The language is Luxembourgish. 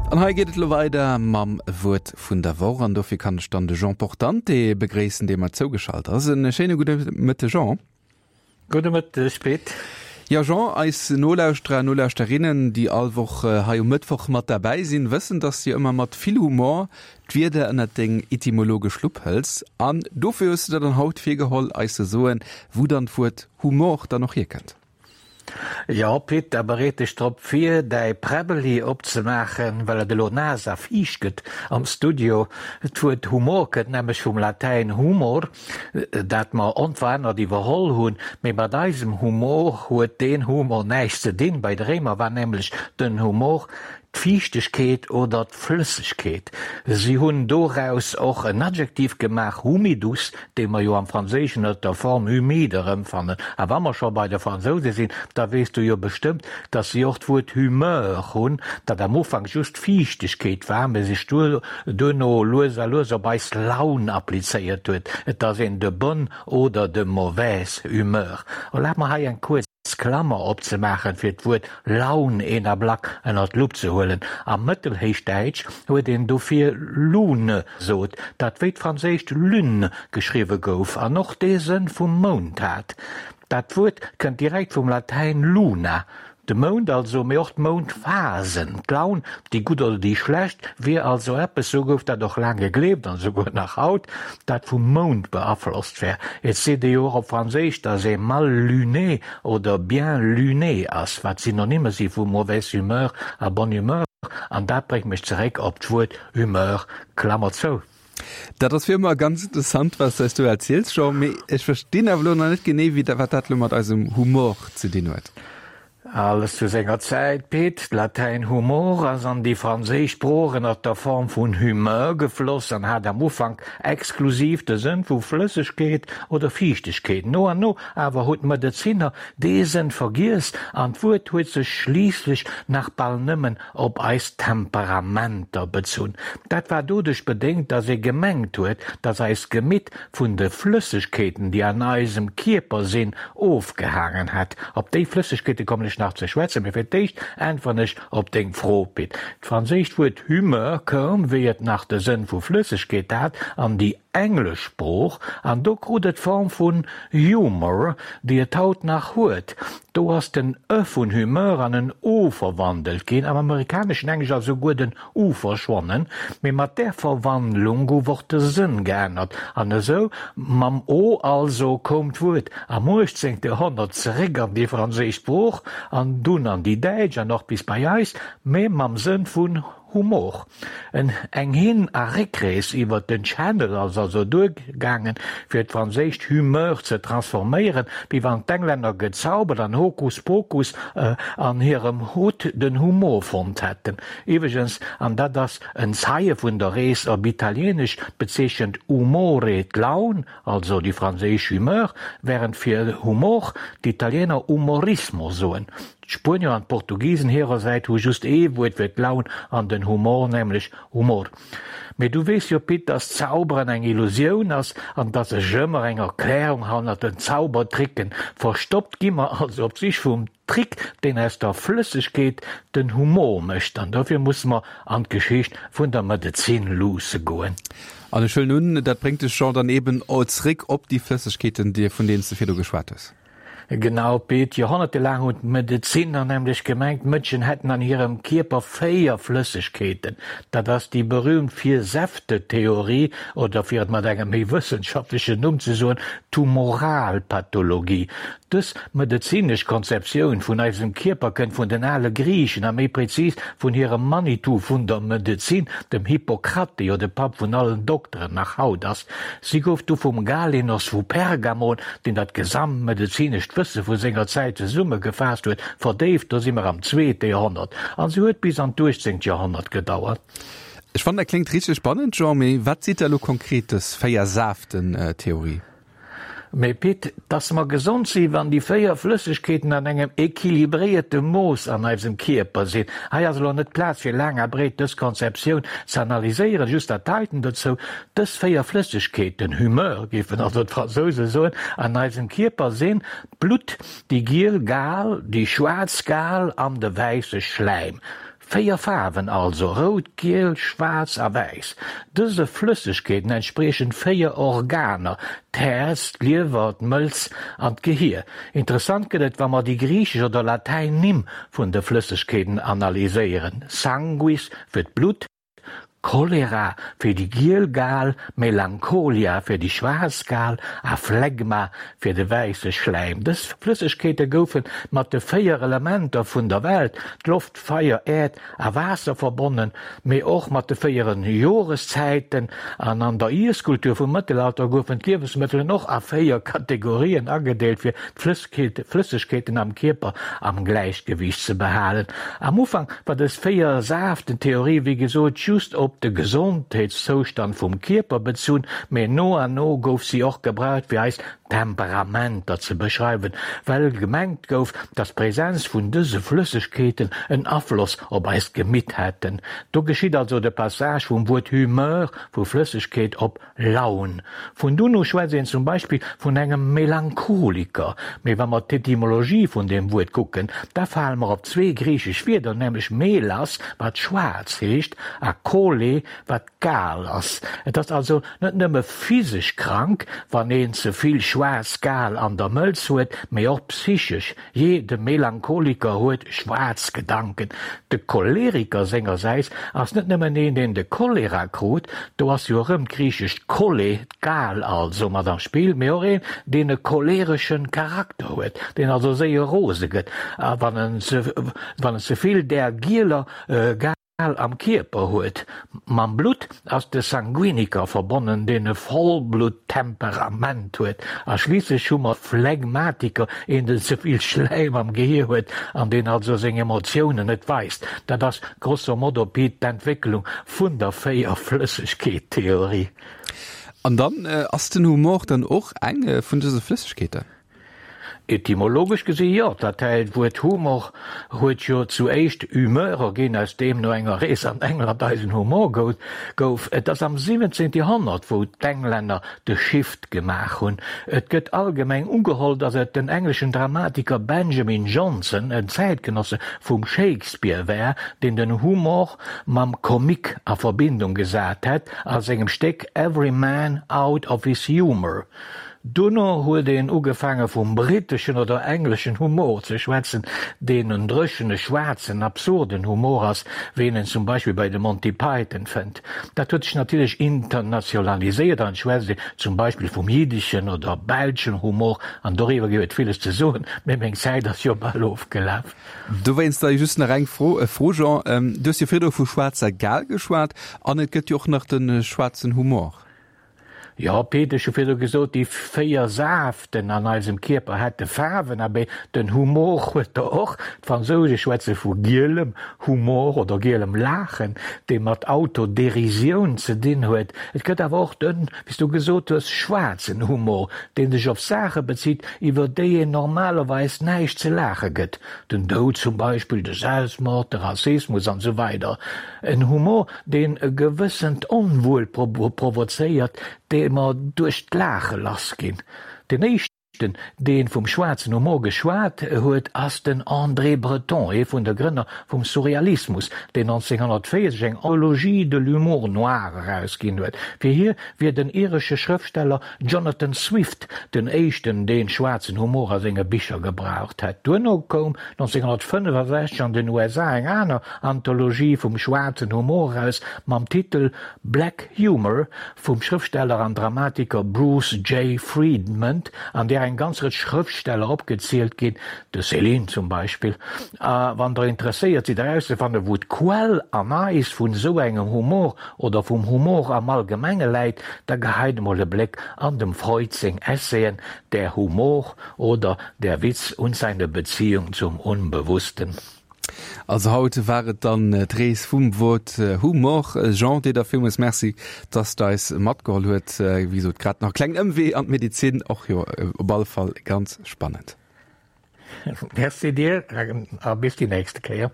An hei geet et elo weider mam Wuert vun der Woch an dofir kann ech dann de Jean Portante begréissen, dee mer zougeschalt ass. En schéine gudde Mëtteg, Jean. Gudde Mëtteg, Pit. Jo, Jean, eis Nolauschterer a Nolauschterinnen, déi all Woch hei um Mëttwoch mat derbäi sinn, wëssen, dass du ëmmer mat vill Humor d'Wierder ënnert deng etymologesch Lupp hëls. An dofir hues du der dann haut virgeholl, eis ze soen, wou dann d'Wuert Humor dann och hierkënnt. Jo, Pit, da bereet dech drop vir, däi Präbbeli opzemaachen, well et elo naass a fiicht gëtt am Studio. D'Wuert Humor kënnt nämlech vum Latäin humor, dat mer onverännert iwwerholl hunn. Mee mat eisem Humor huet deen Humor näischt ze dinn. Bei de Réimer war nämlech den Humor d'Fiichtegkeet oder d'Flëssegkeet. Si hunn doraus och en Adjektiv gemaach, humidus, dee mer jo am Franséischen ënner der Form humide erëmfannen. A wa mer scho bei de Fransouse sinn, da weess du jo bestëmmt, datt si och d'Wuert humeur hunn, dat am Ufank just Fiichtegkeet war, mä sech duerno lues a lues op eis Laun applizéiert huet. Et ass een de bonne oder de mauvaise humeur. Erlaabt mer hei eng kuerz Klammer opzemaachen, fir d'Wuert Laun een Ablack ënner d'Lupp ze huelen. Am Mëttelhéichdäitsch huet een dofir Lune sot, dat wéi d'franséischt lune geschriwwe gouf an och dee Sënn vum Mound hat. Dat Wuert kënnt direkt vum Latäin luna, de Mound also, mee och d'Moundphasen, d'Laun, déi gutt oder déi schlecht, wier also eppes, sou gouf dat och laang gegleeft an esouguer nach haut, dat vum Mound beaflosst wär. Et seet ee jo och op Franséisch, dass ee mal luné oder bien luné ass, wat Synonyme si vu mauvaise humeur a bonne humeur, an dat bréngt mech zeréck op d'Wuert humeur, Klammer zou. Dat ass wéi ëmmer ganz interessant, wat s du eis do erziels, Jean, mee ech verstinn awer elo nach net genee, wéi wat dat elo mat eisem Humor ze dinn huet. Alles zu senger Zäit, Pit. D'Latäin humor ass an déi franséisch Sprooch ënner der Form vun humeur gefloss an hat am Ufank exklusiv de Sënn vu Flëssegkeet oder Fiichtegkeet. No an no awer hunn d'Medezinner dee Sënn vergiess an d'Wuert huet sech schliisslech nach bal nëmmen op eis Temperamenter bezunn. Dat war doduerch bedéngt, dass ee gemengt huet, dass eist Gemitt vun de Flëssegkeeten, déi an eisem Kierper sinn, ofgehaangen hätt. Op déi Flëssegkeete kommen ech nach ze schwätzen, mee fir d'éischt äntweren ech op deng Fro, Pit. D'franséischt Wuert humeur koum, wéi et nach de Sënn vu Flëssegkeet hat, an déi englesch Sprooch, an do krut et d'Form vun humour, déi et haut nach huet. Do ass den e vun humeur an en o verwandelt ginn, am amerikaneschen Englesch ass esouguer den u verschwonnen, mee mat där Verwandlung gouf och de Sënn geännert, an esou, mam o also, koum d'Wuert am uechtzéngte Joerhonnert zeréck an déi franséisch Sprooch an dunn an déi däitsch an och bis bei eis, mee mam Sënn vun Humor. En eng Hin a Réckrees iwwer den Channel ass also duergaangen, fir d'franséischt humeur ze transforméieren, wéi wann d'Englänner gezaubert an Hokus Pokus an hirem Hutt den Humor fonnt hätten. Iwweregens, an dat ass en Zeie vun der Rees, op Italieenesch bezeechent umore d'Laun, also déi franséisch humeur, wärend fir Humor d'Italiener umorismo soen. D'Spuenier an d'Portugisen hirersäit hu just ee Wuert fir d'Laun an den Humor, nämlech humor. Mee du weess jo, Pit, dass Zauberen eng Illusioun ass an dass sech ëmmer eng Erklärung hannert den Zaubertricken verstoppt. Gi mer also op d'Sich vum Trick, deen aus der Flëssegkeet den Humor mécht. An dofir musse mer an d'Geschicht vun der Medezin luusse goen. An ech huelen un, dat bréngt dech, Jean, dann eben zréck op déi Flëssegkeeten, vun deenen s de virdu geschwat hues. Genau, Pit. Joerhonnertelaang hunn d'Medezinner nämlech gemengt, d'Mënschen hätten an hirem Kierper 4 Flëssegkeeten. Dat ass déi berüümt Vier-Säfte-Theorie, oder fir et mat engem méi wëssenschaftlechen Numm ze soen, d'Humoralpathologie. Dës medezinesch Konzeptioun vun eisem Kierper kënnt vun den ale Griichen a méi prezis vun hirem Manitou vun der Medezin, dem Hippokrat, dee jo de Papp vun allen Dokteren nach haut ass. Si gouf du vum Galenos vu Pergamon, deen dat gesamt medezinescht Wësse vu senger Zäit zesummegefaasst huet, verdéift, do si mer am zweete Joerhonnert, a se huet bis an d'uechtzéngt Joerhonnert gedauert. Ech fannen dat kléngt richteg spannend, Jean, mee wat seet da lo konkret dës Véier-Saaften-Theorie? Mee Pit, dass mer gesond si wann déi 4 Flëssegkeeten an engem equilibréierte Mooss an eisem Kierper sinn. Hei ass elo net d'Plaz fir laang a breet dës Konzeptioun ze analyséieren, just dat heiten dozou, Dës 4 Flëssegkeeten, Humeur géifen also d'Fransouse soen, an eisem Kierper sinn, d'Blutt, déi giel Gal, déi schwaarz Gal an de wäisse Schläim. 4 Faarwen also, rout, giel, schwaarz a wäiss. Dëse Flëssegkeeten entspriechen 4 Organer, d'Häerz, d'Liewer, d'Mëlz an d'Gehier. Interessant gëtt et, wa mer déi griichesch oder latäin Nimm vun de Flëssegkeeten analyséieren, Sanguis fir d'Blutt, Cholera fir déi giel Gal, Melancholia fir déi schwaarz Gal a Phlegma fir de wäisse Schläim. Dës Flëssegkeete goufe mat de 4 Elementer vun der Welt, d'Loft, Feier, Äerd a Waasser, verbonnen, mee och mat de 4 Joreszäiten. An an der Iesskultur vum Mëttelalter goufen d'Liewensmëttelen och a 4 Kategorien agedeelt, fir d'Flëssegkeeten am Kierper am Gläichgewiicht ze behalen. Am Ufank war dës Véier-Saaften-Theorie wéi gesot just op de Gesondheetszoustand vum Kierper bezunn, mee no an no gouf si och gebraucht fir eis Temperamenter ze beschreiwen, well gemengt gouf, datt d'Präsenz vun dëse Flëssegkeeten en Afloss op eist Gemitt hätten. Do geschitt also de Passage vum Wuert Humeur, vu Flëssegkeet, op Laun. Vun dunn u schwätzt een zum Beispill vun engem Melancholiker. Mee wa mer d'Etymologie vun deem Wuert kucken, da fale mer op zwee griichesch Wierder, nämlech melas, wat schwaarz heescht, a chole, wat Gal ass. Et ass also net nëmme physesch krank, wann een ze vill schwaarz Gal an der Mëlz huet, mee och psychesch. Jee, de Melancholiker huet schwaarz Gedanken. De Choleriker sengersäits ass net nëmmen een, deen de Cholera krut, do ass jo erëm d'griichescht chole, d'Gal also, mat am Spill, mee och een, deen e cholereschen Charakter huet, deen also séier rose gëtt, a wann en ze vill där gieler Gal am Kierper huet. Mam Blutt ass de Sanguiniker verbonnen, deen e Vollblutt-Temperament huet. A schliisslech hu mer Phlegmatiker, een den ze vill Schläim am Gehier huet an deen also seng Emotiounen net weist. Dat ass grosso modo, Pit, d'Entwécklung vun der Véierflëssegkeet-Theorie. An dann ass den Humor dann och eng vun dëse Flëssegkeeten? Etymologesch gesi jo, d'latäin Wuert humor huet jo zu éischt humeur erginn, aus deem no enger Rees an England eisen Humor gouf. Et ass am 17. Joerhonnert wou d'Englänner de Shift gemaach hunn. Et gëtt allgemeng ugeholl, datt et den engleschen Dramatiker Benjamin Jonson, en Zäitgenosse vum Shakespeare war, deen den Humor mam Comique a Verbindung gesat hätt a sengem Stéck Every Man out of his Humour. Dono huet een ugefaange vum britteschen oder engleschen Humor ze schwätzen, deen en dréchene, schwaarzen, absurden Humor ass, wéi een en zum Beispill bei de Monty Python fënnt. Dat huet sech natierlech internationaliséiert an et schwätzt een zum Beispill vum jiddeschen oder belschen Humor an doriwwer géif et villes ze soen, mee meng Zäit ass jo bal ofgelaf. Dowéinst da just nach eng Fro, Jean, Du hues jo virdru vu schwaarzer Gal geschwat an et gëtt jo och nach de schwaarzen Humor. Jo, Pit, ech hu virdu gesot, déi 4 Saaften an eisem Kierper hätte Faarwen. Abee, den Humor huet der och. D'Fransouse schwätze vu gielem Humor oder gielem Laachen, dee mat Autoderisioun ze dinn huet. Et gëtt awer och den, wéi s du gesot hues, schwaarzen Humor, dee sech op Saache bezitt, iwwer déi een normalerweis näischt ze laache gëtt, den Doud zum Beispill, de Selbstmord, de Rassismus an esou weider. En Humor, deen e gewëssent Onwuel provozéiert, dee mer duerch d'Laache lass ginn. Den éischten, dee vum schwaarzen Humor geschwat huet, ass den André Breton, ee vun de Grënner vum Surrealismus, deen 1940 eng Anthologie de l'humour noir erausginn huet. Fir hie wier den iresche Schrëftsteller Jonathan Swift den éischten, deen schwaarzen Humor a senge Bicher gebraucht hätt. Duerno koum 1965 an den USA eng aner Anthologie vum schwaarzen Humor eraus mam Titel Black Humor vum Schrëftsteller an Dramatiker Bruce J. Friedman, an där eng ganz Rëtsch Schrëftsteller opgezielt ginn, de Céline zum Beispill. A wann der interesséiert sidd erauszefannen, wou d'Quell an eis vun esou engem Humor oder vum Humor am Allgemenge läit, da geheit emol e Bléck an dem Freud seng Essayen Der Humor oder Der Witz und seine Beziehung zum Unbewussten. Also haut war et dann d'Rees vum Wuert Humor. Jean, dir da villmools Merci, dass de eis matgeholl huet. Wéi gesot, grad nach e klengen Ëmwee an d'Medezin, och jo op alle Fall ganz spannend. Merci dir a bis déi nächste Kéier.